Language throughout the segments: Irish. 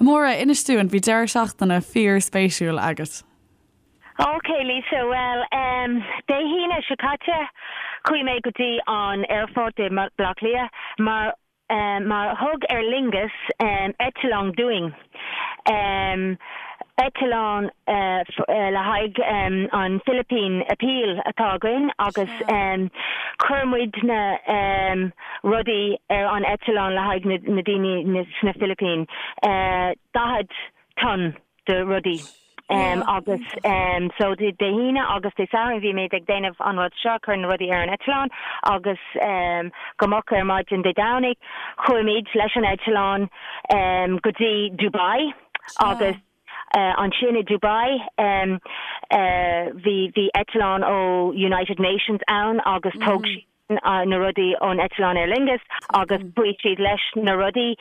Máire, inis dúinn, bhí deireadh seachtaine fíor-spéisiúil agat. Ok Lisa, bhuel em Dé hAoine seo caite chuaigh mé go dtí an aerfort i mBaile Átha Cliath mar em mar thug Aer Lingus em eitleán dúinn em eitleán eh le haghaidh em an Philippine Appeal atá againn agus em chuir muidne em rudaí ar an eitleán le haghaidh na na daoine sna Philippines eh 40 ton de rudaí agus so Dé hAoine agus Dé Sathairn bhí muid ag déanamh an rud seo, cur na rudaí ar an eitleán agus go moch ar maidin Dé Domhnaigh chuaigh muid leis an eitleán go dtí Dubai agus ansin i Dubai bhí bhí eitleán ó United Nations ann agus thóg siad na rudaí ón eitleán Aer Lingus agus chuaigh siad leis na rudaí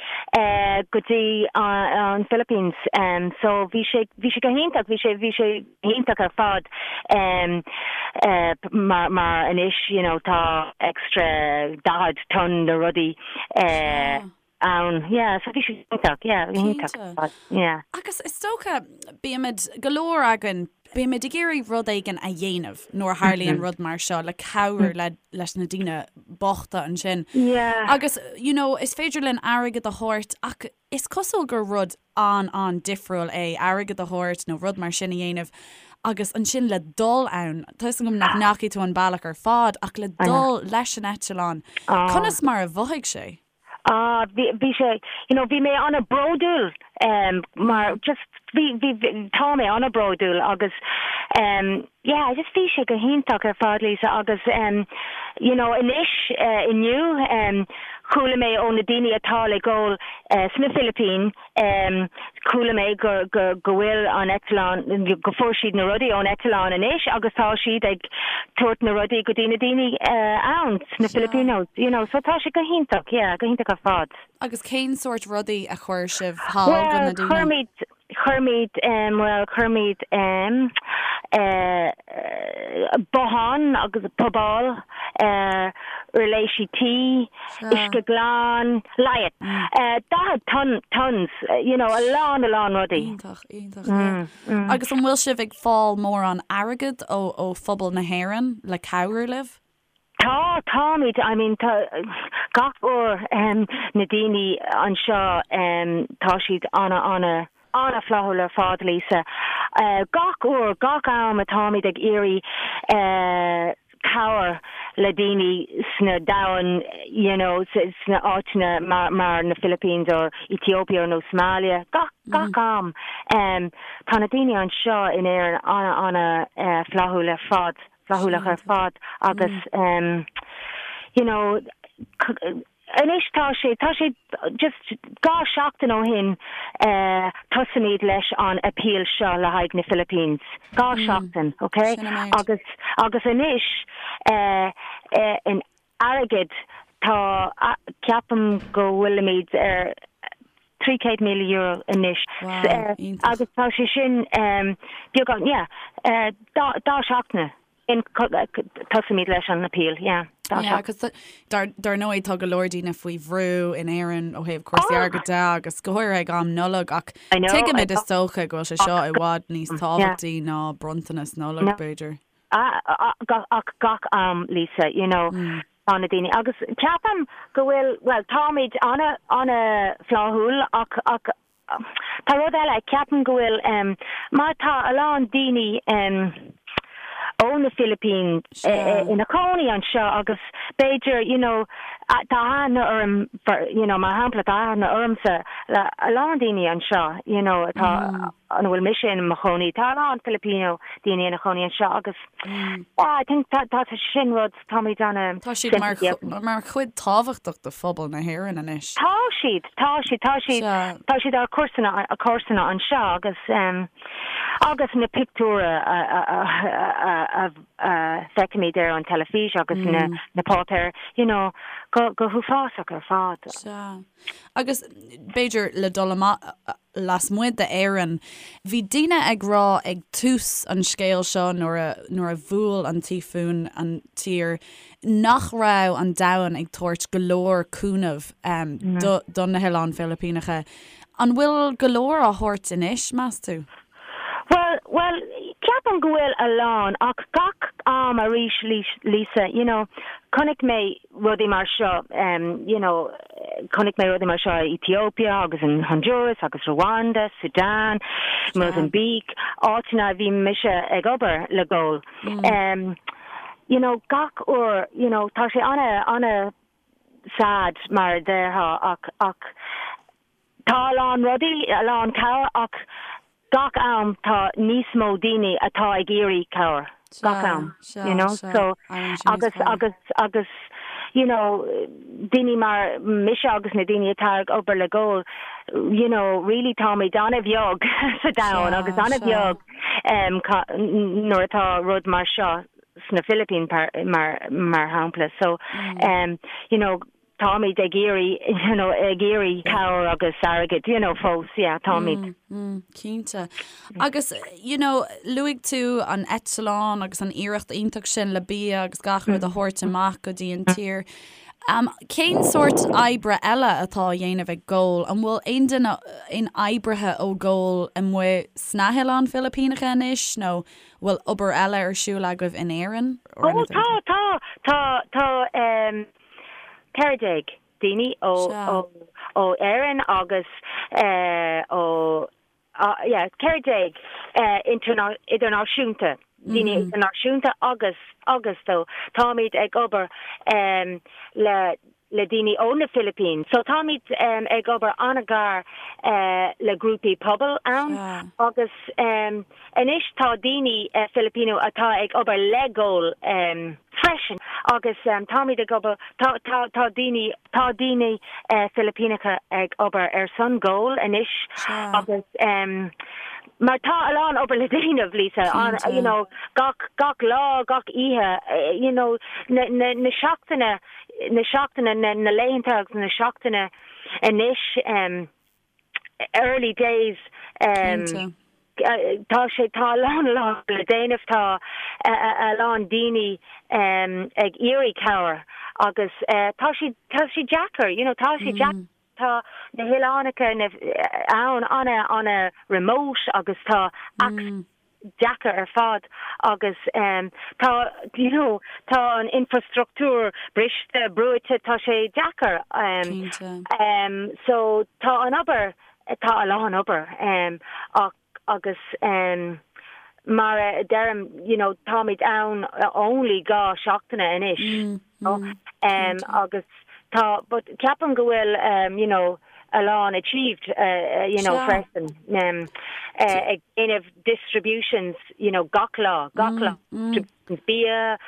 go dtí an Philippines. So bhí sé, bhí sé go hiontach, bhí sé, bhí sé iontach ar fad mar, mar anois you know tá extra 40 ton de rudaí ann. Yeah, so bhí sé iontach, yeah, bhí iontach ar fad, yeah. Agus is dócha, bímid, go leor againn, bímid ag iarraidh rud éigin a dhéanamh nuair a tharlaíonn rud mar seo le cabhrú le, leis na daoine bochta ansin. Yeah. Agus, you know, is féidir linn airgead a thabhairt ach is cosúil gur rud an-an-difriúil é airgead a thabhairt nó rud mar sin a dhéanamh agus ansin le dul ann, tá 'fhios agam nach ndeachaigh tú an bealach ar fad ach le dul leis an eitleán, conas mar a mhothaigh sé? Ah, bhí, bhí sé, you know, bhí mé an-bhródúil um, mar just bhí, bhí, bhí, tá mé an-bhródúil agus um, yeah, just bhí sé go hiontach ar fad, Lisa, agus um, you know, anois uh, inniu um, chuala mé ó na daoine atá le goil uh, sna Philippines um, chuala mé go, go, go bhfuil an eitleán, go fuair siad na rudaí ón eitleán anois agus tá siad ag tabhairt na rudaí go dtí na daoine uh, ann sna Filipinos, you know, so tá sé go hiontach, yeah, go hiontach ar fad. Agus cén sórt rudaí a chuir sibh thall go Well, na daoine? chuir muid, chuir muid, um, well, chuir muid um, uh, bothán agus puball, uh, uirlisí tí, uisce glan, leigheas, 40 ton, tons, you know, a lán, a lán rudaí. Iontach, iontach, yeah. Agus an bhfuil sibh ag fáil mórán airgead ó, ó phobal na hÉireann le cabhrú libh? Tá, táimid, I mean, tá, gach uair, na daoine anseo, tá siad ana, ana, ana-fhlaithiúil ar fad, Lisa. Gach uair, gach am atáimid ag iarraidh cabhair le daoine sna domhan, you know, sna áiteanna mar, mar na Philippines or Ethiopia nó Somalia, gach, gach am, tá na daoine anseo in Éirinn ana, ana-fhlaithiúil ar fad. flaithiúlach ar fad agus you know anois tá sé tá sé just 2 seachtain ó shin tosaímid leis an appeal seo le haghaidh na Philippines 2 seachtain ok agus agus anois in airgead tá ceapaim go bhfuilimid ar €300,000 anois agus tá sé sin beagán yeah 2 seachtaine in tosaímid leis an appeal yeah 2 Yeah agus dar dar ndóigh tá go leor daoine faoi bhrú in Éirinn ó thaobh cúrsaí airgid de agus go háirithe ag am Nollag ach tuigimid is dócha go bhfuil sé seo i bhfad níos tábhachtaí ná bronntanas Nollag b'fhéidir. Ach gach am, Lisa, you know, tá na daoine, agus ceapaim go bhfuil, bhuel, táimid ana, ana-fhlaithiúil ach, ach tá rud eile, ceapaim go bhfuil, mar tá a lán daoine ó na Philippines ina cónaí anseo agus b'fhéidir, you know, tá aithne orm, you know, mar shampla, tá aithne ormsa le a lán daoine anseo, you know, atá, ina bhfuil mise in mo chónaí. Tá a lán Filipino daoine ina chónaí anseo agus yeah, I think tá tá sin rud táimid ana Tá siad mar mar chuid tábhachtach de phobal na hÉireann anois. Tá siad, tá siad, tá siad, tá siad ár comharsana comharsana anseo agus um, agus na pictiúra a a a a a feicimid ar an teilifís agus na na páipéir, you know, go go huafásach ar fad. Sea. Agus b'fhéidir le dul amach lasmuigh d'Éirinn, bhí daoine ag rá ag tús an scéil seo nuair a nuair a bhuail an tíofún an tír nach raibh an domhan ag tabhairt go leor cúnamh do do na hOileáin Philipíneacha. An bhfuil go leor á thabhairt anois, meas tú? Bhuel, bhuel, ceapaim go bhfuil a lán, ach gach am arís, Lisa, you know, chonaic mé rudaí mar seo, you know, chonaic mé rudaí mar seo i Ethiopia agus in Honduras agus Rwanda, Sudan, Mozambique, áiteanna a bhí mise ag obair le Goal. You know, gach uair, you know, tá sé ana, ana sad mar a déarfá ach, ach, Tá a lán rudaí, a lán cabhair ach gach am tá níos mó daoine atá ag iarraidh cabhair, gach am, you know, so agus agus agus you know daoine mar mise agus na daoine atá ag obair le Goal, you know, really táimid an-bheag sa domhan agus an-bheag nuair atá rud mar seo sna Philippines mar mar shampla so you know Táimid ag iarraidh, you know, ag iarraidh cabhair agus airgead, you know, fós, yeah, táimid. Mm, cinnte. Agus, you know, luaigh tú an eitleán agus an iarracht iontach sin le bia agus gach rud a thabhairt amach go dtí an tír. Um, cén sórt oibre eile atá á dhéanamh ag Goal? An bhfuil aon duine, aon oibrithe ó Goal amuigh sna hOileáin Philipíneacha anois nó bhfuil obair eile ar siúl agaibh in Éirinn? Ó, tá, tá, tá, tá, um, 14 daoine ó Éirinn agus ó yeah 14 idirnáisiúnta, daoine idirnáisiúnta agus agus so táimid ag obair le le daoine ó na Philippines. So táimid ag obair an-ghar le grúpaí pobail ann agus Anois tá daoine Filipino atá ag obair le Goal freisin agus táimid ag obair, tá, tá, tá daoine, tá daoine Filipíneacha ag obair ar son Goal anois agus mar tá a lán obair le déanamh, Lisa, you know, gach, gach lá, gach oíche, you know, na, na, na seachtaine, na seachtaine, na, na laethanta agus na seachtaine anois. early days tá sé tá a lán a lán le déanamh tá a lán daoine ag iarraidh cabhair agus tá sé tá sé deacair you know tá sé deacair tá na hoileánacha ann ana ana remote agus tá access deacair ar fad agus tá you know tá an infrastruchtúr briste, brúite, tá sé deacair. Cinnte. So tá an obair, tá a lán obair ach agus mar a deirim you know táimid ann only 2 seachtaine anois you know agus tá but ceapaim go bhfuil you know a lán achieved you know freisin ag déanamh distributions you know gach lá gach lá bia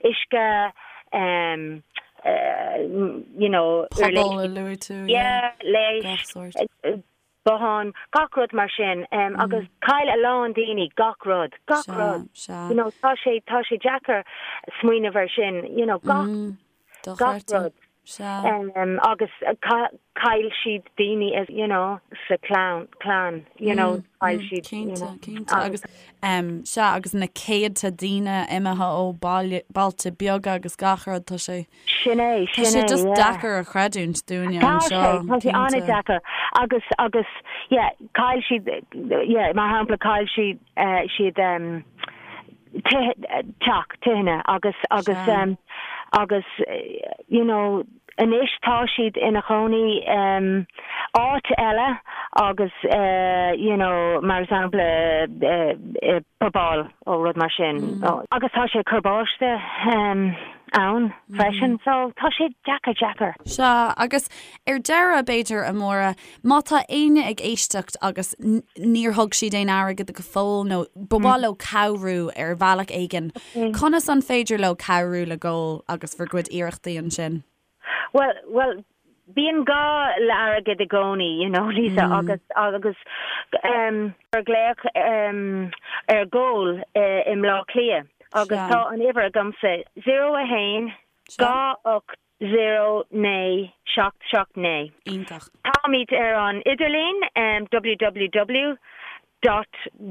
uisce you know Pobal a luaigh tú yeah leighis botháin gach rud mar sin agus chaill a lán daoine gach rud gach rud you know tá sé tá sé deacair smaoineamh ar sin you know gach gach rud. Agus chaill siad daoine as, you know, sa chlann, clann, you know, chaill siad, you know. Cinnte, cinnte. Agus, sea, agus na céadta daoine imithe ó bailte beaga agus gach rud, tá sé, Sin é, tá sin sé é, just yeah. deacair a chreidiúint dúinne Tá sé, anseo, tá sé cinnte. an-deacair. Agus, agus, yeah, chaill siad, yeah, mar shampla, chaill siad, siad, teach, tithe agus agus agus you know anois tá siad ina chónaí áit eile agus you know mar shampla i bpuball ó rud mar sin agus tá sé ag cur báistí ann freisin so tá sé deacair deacair. Sea, agus ar deireadh b'fhéidir a Mháire, Má tá éinne ag éisteacht agus níor thug siad aon airgead go fóill nó ba mhaith leo cabhrú ar bhealach éigin, conas an féidir leo cabhrú le Goal agus bhur gcuid iarrachtaí ansin? Bhuel, bhuel, bíonn gá le airgead i gcónaí, you know, Lisa, agus, agus ehm, cuir glaoch ehm, ar Goal i mBleá Cliath agus tá an uimhir agamsa, 0 1 2 8 0 9 7 7 9. Iontach. Táimid ar an idirlíon www dot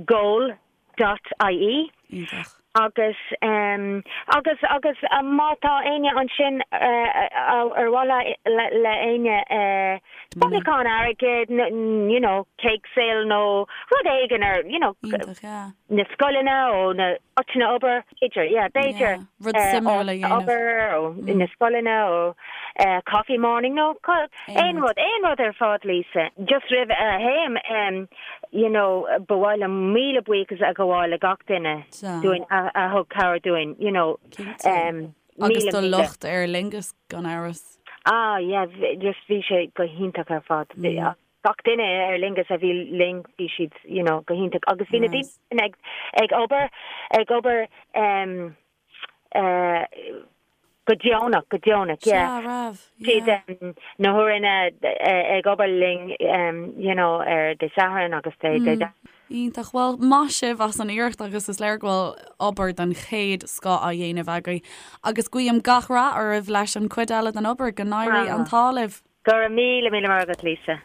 goal dot ie. Iontach. Agus, agus, agus má tá éinne ansin ar mhaith le, le éinne bailiúchán airgid, you know, cake sale nó rud éigin ar, you know, na scoileanna ó na áiteanna obair, b'fhéidir, yeah, b'fhéidir, Rud suimiúil a dhéanamh. obair ó na scoileanna ó coffee morning nó aon rud, aon rud ar fad, Lisa. Just roimh a théim, you know, ba mhaith liom míle buíochas a ghabháil le gach duine dúinn a thug cabhair dúinn, you know. Cinnte. Agus do lucht Aer Lingus gan amhras. Ah, yeah, just bhí sé go hiontach ar fad. Gach duine i Aer Lingus a bhí linn, bhí siad, you know, go hiontach. Agus bhí na daoine sin ag, ag obair, ag obair em, eh, go deonach, go deonach, yeah. Sea, raibh, Siad yeah. em, na huaireanna ag obair linn em, you know, ar Dé Sathairn agus Dé, Dé Domhnaigh. Iontach. Bhuel, maith sibh as an iarracht agus is léir go bhfuil obair den chéad scoth á dhéanamh agaibh. Agus guím gach rath oraibh leis an chuid eile den obair. Go n-éirí an t-ádh libh. Go raibh míle míle maith agat, Lisa.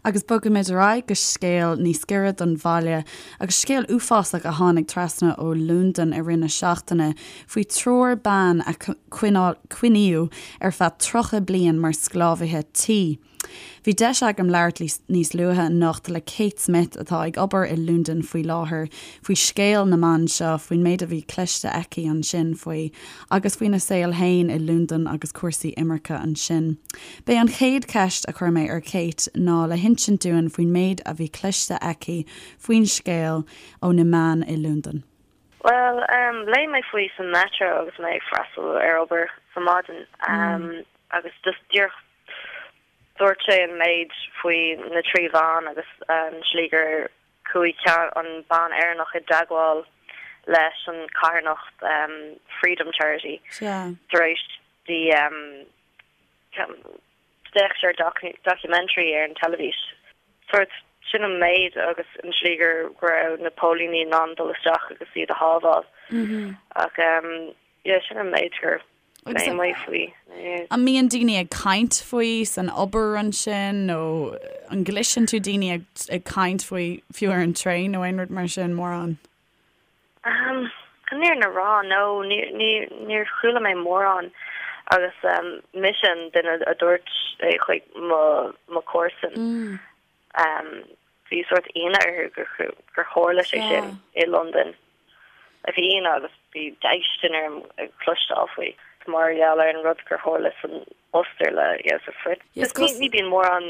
Agus bogfaimid ar aghaidh go scéal níos giorra don bhaile, agus scéal uafásach a tháinig trasna ó Londain i rith na seachtaine faoi triúr ban a coinníodh ar feadh 30 bliain mar sclábhaithe tí. Bhí deis agam labhairt níos luaithe anocht le Kate Smith, atá ag obair i Londain faoi láthair, faoi scéal na mban seo, faoin méid a bhí cloiste aici ansin faoi, agus faoina saol féin i Londain agus cúrsaí imirce ansin. B'é an chéad cheist a chuir mé ar Kate ná le hinsint dúinn faoin méid a bhí cloiste aici faoin scéal ó na meáin i Londain. Bhuel, léigh mé faoi sa metro agus mé ag freastal ar obair sa maidin agus just díreach Dúirt sé an méid faoi na 3 bhean agus an slí gur chuaigh ceann, an bean Éireannach i dteagmháil leis an carthanacht Freedom Charity tar éis di d'fhéach sí ar documentary ar an teilifís. Sórt sin an méid agus an slí gur go raibh na póilíní in ann dul isteach agus iad a shábháil. Ach yeah sin an méid gur Léigh mé faoi. An mbíonn daoine ag caint faoi san obair ansin nó an gcloiseann tú daoine ag ag caint faoi fiú ar an traein nó aon rud mar sin mórán? Chun an fhírinne a rá, no, níor chuala mé mórán agus mise an duine a dúirt é chuig mo mo chomharsan. Bhí sórt ionadh orthu gur tharla sé sin i Londain. Bhí ionadh agus bhí déistin orm ag cloisteáil faoi mar gheall ar an rud gur tharla san Ostair le Josef Fritzl. Ní bhíonn mórán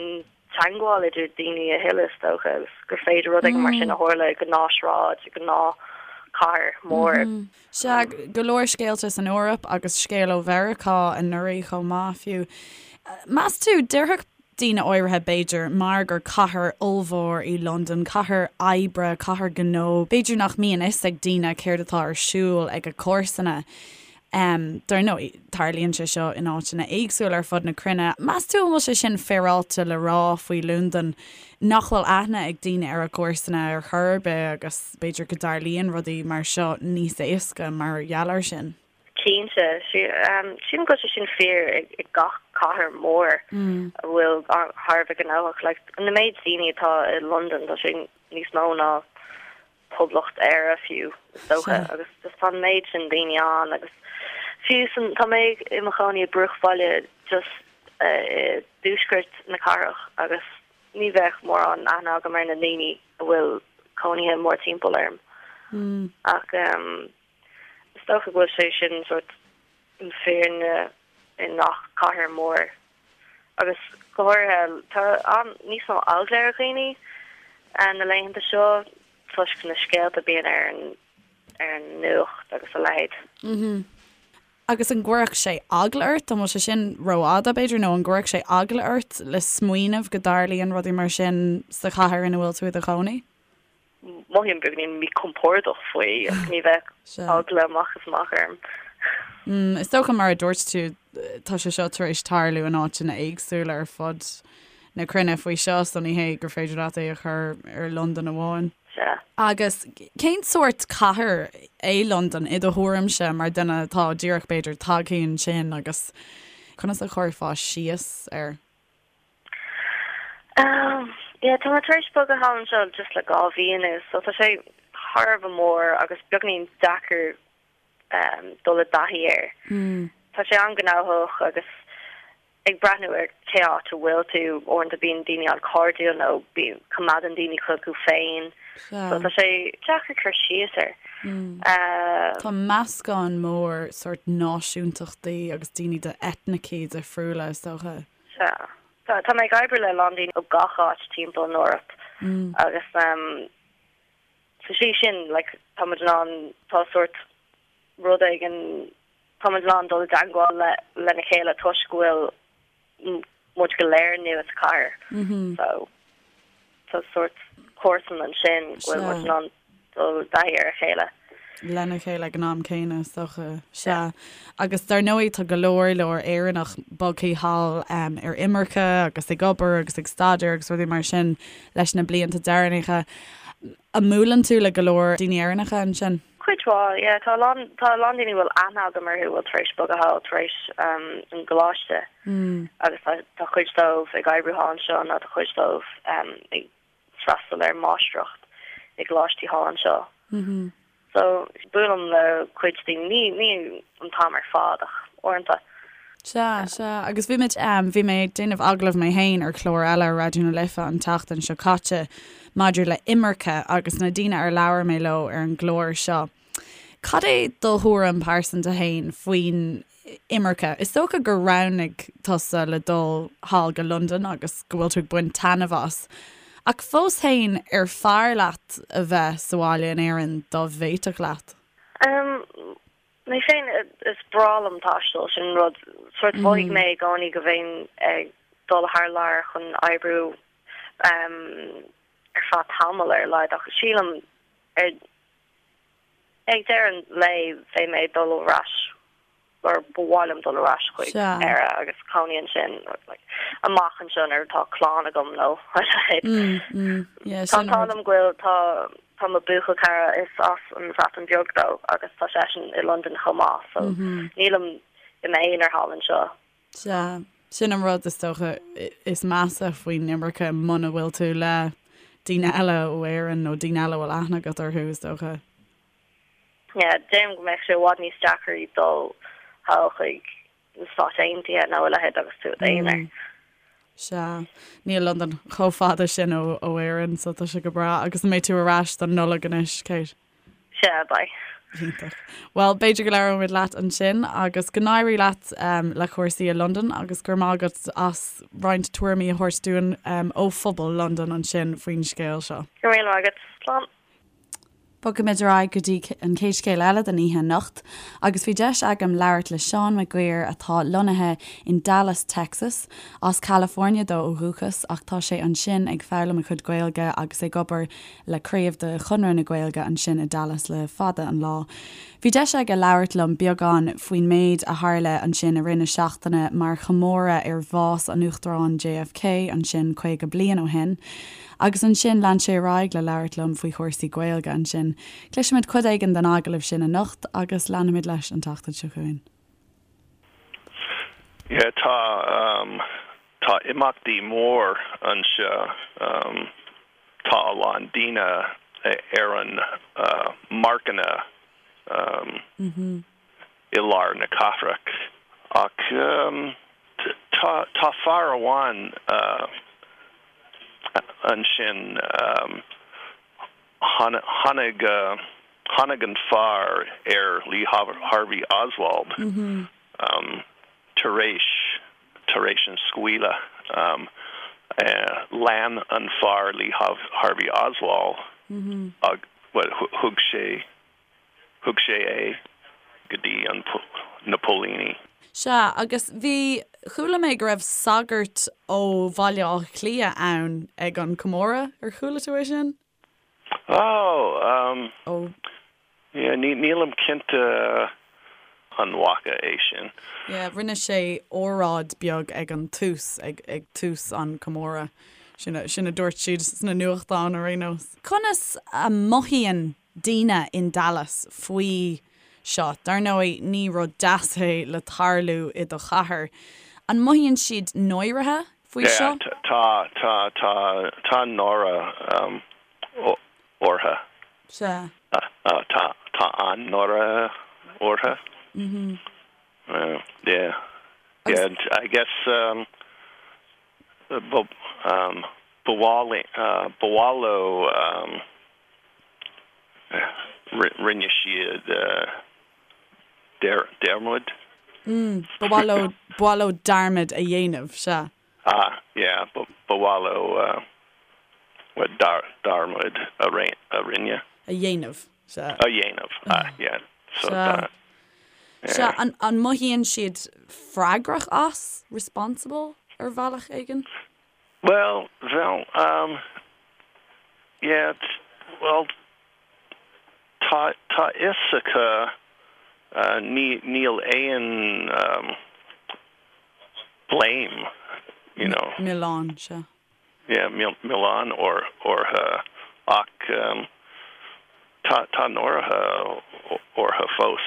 teagmháil idir daoine a thuilleadh is dócha agus gur féidir rud éigin mar sin a tharla i gnáthshráid, i gnáthchathair mhór. Sea, go leor scéalta san Eoraip agus scéal ó Mheiriceá anuraidh chomh maith fiú. Meas tú, déarfadh daoine áirithe, b'fhéidir, mar gur cathair ollmhór í Londain, cathair oibre, cathair gnó, b'fhéidir nach mbíonn fhios ag daoine céard atá ar siúl ag a comharsana. Dar ndóigh, tarlaíonn sé seo in áiteanna éagsúla ar fud na cruinne. Meas tú an bhfuil sé sin féaráilte le rá faoi Londain, nach bhfuil aithne ag daoine ar a gcomharsana ar chor ar bith agus b'fhéidir go dtarlaíonn rudaí mar seo níos éasca mar gheall air sin? Cinnte. Sílim go bhfuil sé sin fíor i gach cathair mhór a bhfuil thar a bheith gnóthach. Like, na méid daoine atá i Londain, tá sé níos mó ná Poblacht Éire fiú, is dócha, agus just tá an méid sin daoine ann agus fiú san, tá mé i mo chónaí i bruachbhaile just i dtuaisceart na cathrach agus ní bheadh mórán aithne agam ar na daoine a bhfuil cónaithe mórtimpeall orm. Ach Is dócha go bhfuil sé sin sórt an fírinne i ngach cathair mór agus go háirithe tá an níos mó eagla ar dhaoine na laethanta seo toisc na scéalta a bíonn ar an ar an nuacht agus a leithéid. Agus an gcuirfeadh sé eagla ort, an bhfuil sé sin rófhada b'fhéidir, nó an gcuirfeadh sé eagla ort le smaoineamh go dtarlaíonn rudaí mar sin sa chathair ina bhfuil tú i do chónaí? Mothaím beagáinín míchompordach faoi ach ní bheadh eagla amach is amach orm. Is dócha mar a dúirt tú tá sé seo tar éis tarlú in áiteanna éagsúla ar fud na cruinne faoi seo so ní hé gur féidir leat é a chur ar Londain amháin. Sea. Agus cén sórt cathair é Londain i do thuairimse mar duine atá díreach b'fhéidir tagtha ansin agus conas a chuirfeá síos air? Yeah, tá mé tar éis bogadh thall anseo just le 2 mhí anuas, so tá sé thar a bheith mór agus beagainín deacair dul i dtaithí air. Tá sé an-ghnóthach agus ag breathnú ar cé áit a bhfuil tú, uaireanta bíonn daoine an-chairdiúil nó bíonn, coimeádann daoine chucu féin. So tá sé deacair cur síos air. Tá meascán mór sórt náisiúntachtaí agus daoine de eitnicí difriúla is dócha. Sea. Tá mé ag oibriú le a lán daoine ó gach áit timpeall an Eoraip agus sa slí sin like tá muid in ann, tá sórt rud éigin, tá muid in ann dul i dteagmháil le lena chéile toisc go bhfuil muid go léir nua sa chathair. So tá sórt comharsan ansin go bhfuil muid in ann dul i dtaithí ar a chéile. lena chéile ag an am céanna, is dócha. Sea. Agus dar ndóigh tá go leor leor Éireannach bogthaí thall ar imirce agus ag obair agus ag staidéar agus rudaí mar sin leis na blianta deireanacha. An mbuaileann tú le go leor daoine Éireannacha ansin? Cuid mhaith, yeah. Tá a lán, tá a lán daoine a bhfuil aithne agam orthu a bhfuil tar éis bogadh thall tar éis an gcoláiste agus tá, tá cuid dóibh ag oibriú thall anseo nó tá cuid dóibh ag freastal ar máistreacht i gcoláistí thall anseo. So, buailim le cuid daoine, ní, ní an t-am ar fad ach uaireanta. Sea, sea. Agus bhí muid, bhí mé ag déanamh agallamh mé féin ar chlár eile ar Raidió na Life an tseachtain seo caite maidir le imirce agus na daoine ar labhair mé leo ar an gclár seo. Cad é do thuairim pearsanta féin faoin imirce? Is dócha gur roghnaigh tusa le dul thall go Londain agus go bhfuil tú ag baint taitneamh as. Ach fós féin, ar fearr leat a bheith sa bhaile in Éirinn dá bhféadfadh leat? Mé féin, is breá liom taisteal, sin rud, sórt mhothaigh mé i gcónaí go bheinn ag dul thar lear chun oibriú ar feadh tamaill ar a laghad ach sílim ar ag deireadh an lae bheidh mé ag dul ar ais or ba mhaith liom dul ar ais chuig Éire agus cónaí ansin amach anseo nuair atá clann agam nó a leithéid. Tá an t-ádh liom go bhfuil tá tá mo buachaill cara is as an Bhreatain Bheag dó agus tá seisean i Londain chomh maith so nílim i m'aonar thall anseo. Sea, sin an rud is dócha is measa faoin imirce muna bhfuil tú le daoine eile ó Éirinn nó daoine eile a bhfuil aithne agat orthu is dócha. Yeah, deirim go mbeadh sé i bhfad níos deacra dul thall chuig na Stáit Aontaithe nó a leithéid agus tú i d'aonar. Sea, níl Londain chomh fada sin ó Éirinn so tá sé go breá. Agus an mbeidh tú ar ais don Nollaig anois, Kate? Sea, beidh. Iontach. Bhuel, b'fhéidir go labhróimid leat ansin agus go n-éirí leat le cúrsaí i Londain agus go raibh maith agat as roinnt tuairimí a thabhairt dúinn ó phobal Londain ansin faoin scéal seo. Go raibh míle maith agat. Slán. Bogfaimid ar aghaidh go dtí an chéad scéal eile den oíche anocht agus bhí deis agam labhairt le Seán Mac Guidhir atá lonnaithe in Dallas, Texas. As California dó ó dhúchas ach tá sé ansin ag foghlaim a chuid Gaeilge agus ag obair le craobh de Chonradh na Gaeilge ansin i Dallas le fada an lá. Bhí deis aige labhairt liom beagán faoin méid a tharla ansin i rith na seachtaine mar chomóradh ar bhás an Uachtaráin JFK ansin 50 bliain ó shin. Agus ansin lean sé ar aghaidh le labhairt liom faoi chúrsaí Gaeilge ansin. Cloisfimid cuid éigin den agallamh sin anocht agus leanfaimid leis an tseachtain seo chugainn. Yeah, tá, tá imeachtaí mór anseo. Tá a lán daoine ar an marcanna i lár na cathrach. Ach tá, tá fear amháin ansin, tháinig, tháinig an fear ar Lee Harvey Oswald tar éis, tar éis an scaoileadh. Lean an fear Lee Harvey Oswald, bhuel, thug sé, Thug sé é go dtí an na póilíní. Sea, agus bhí, chuala mé go raibh sagart ó Bhaile Átha Cliath ann ag an comóradh, ar chuala tú é sin? Oh, um, Ó. yeah, ní, nílim cinnte an bhfaca é sin. Yeah, rinne sé óráid beag ag an tús, ag, ag tús an comóradh. Sin a, sin a dúirt siad sna nuachtáin ar aon nós. Conas a mothaíonn daoine in Dallas faoi seo. Dar ndóigh, ní rud deas é le tarlú i do chathair. An mothaíonn siad náirithe faoi seo? Yeah, tá, tá, tá, tá náire orthu. Sea. Tá tá an-náire orthu. Yeah. Yeah, I guess um, ba um, ba mhaith ba mhaith leo um, rinne siad dearmad. Ba mhaith leo ba mhaith leo dearmad a dhéanamh, sea. Ah, yeah, ba mhaith leo dearmad a rinne. A dhéanamh, sea. A dhéanamh, ah, yeah. So Sea. Sea, an mothaíonn siad freagrach as, responsible, ar bhealach éigin? Well, bhuel, um, yeah, well, tá tá fhios acu ní níl aon um, blame, you know. Milleán, sea. Yeah, milleán orthu ach um, tá tá náire orthu fós.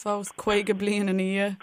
Fós, 50 bliain ina dhiaidh.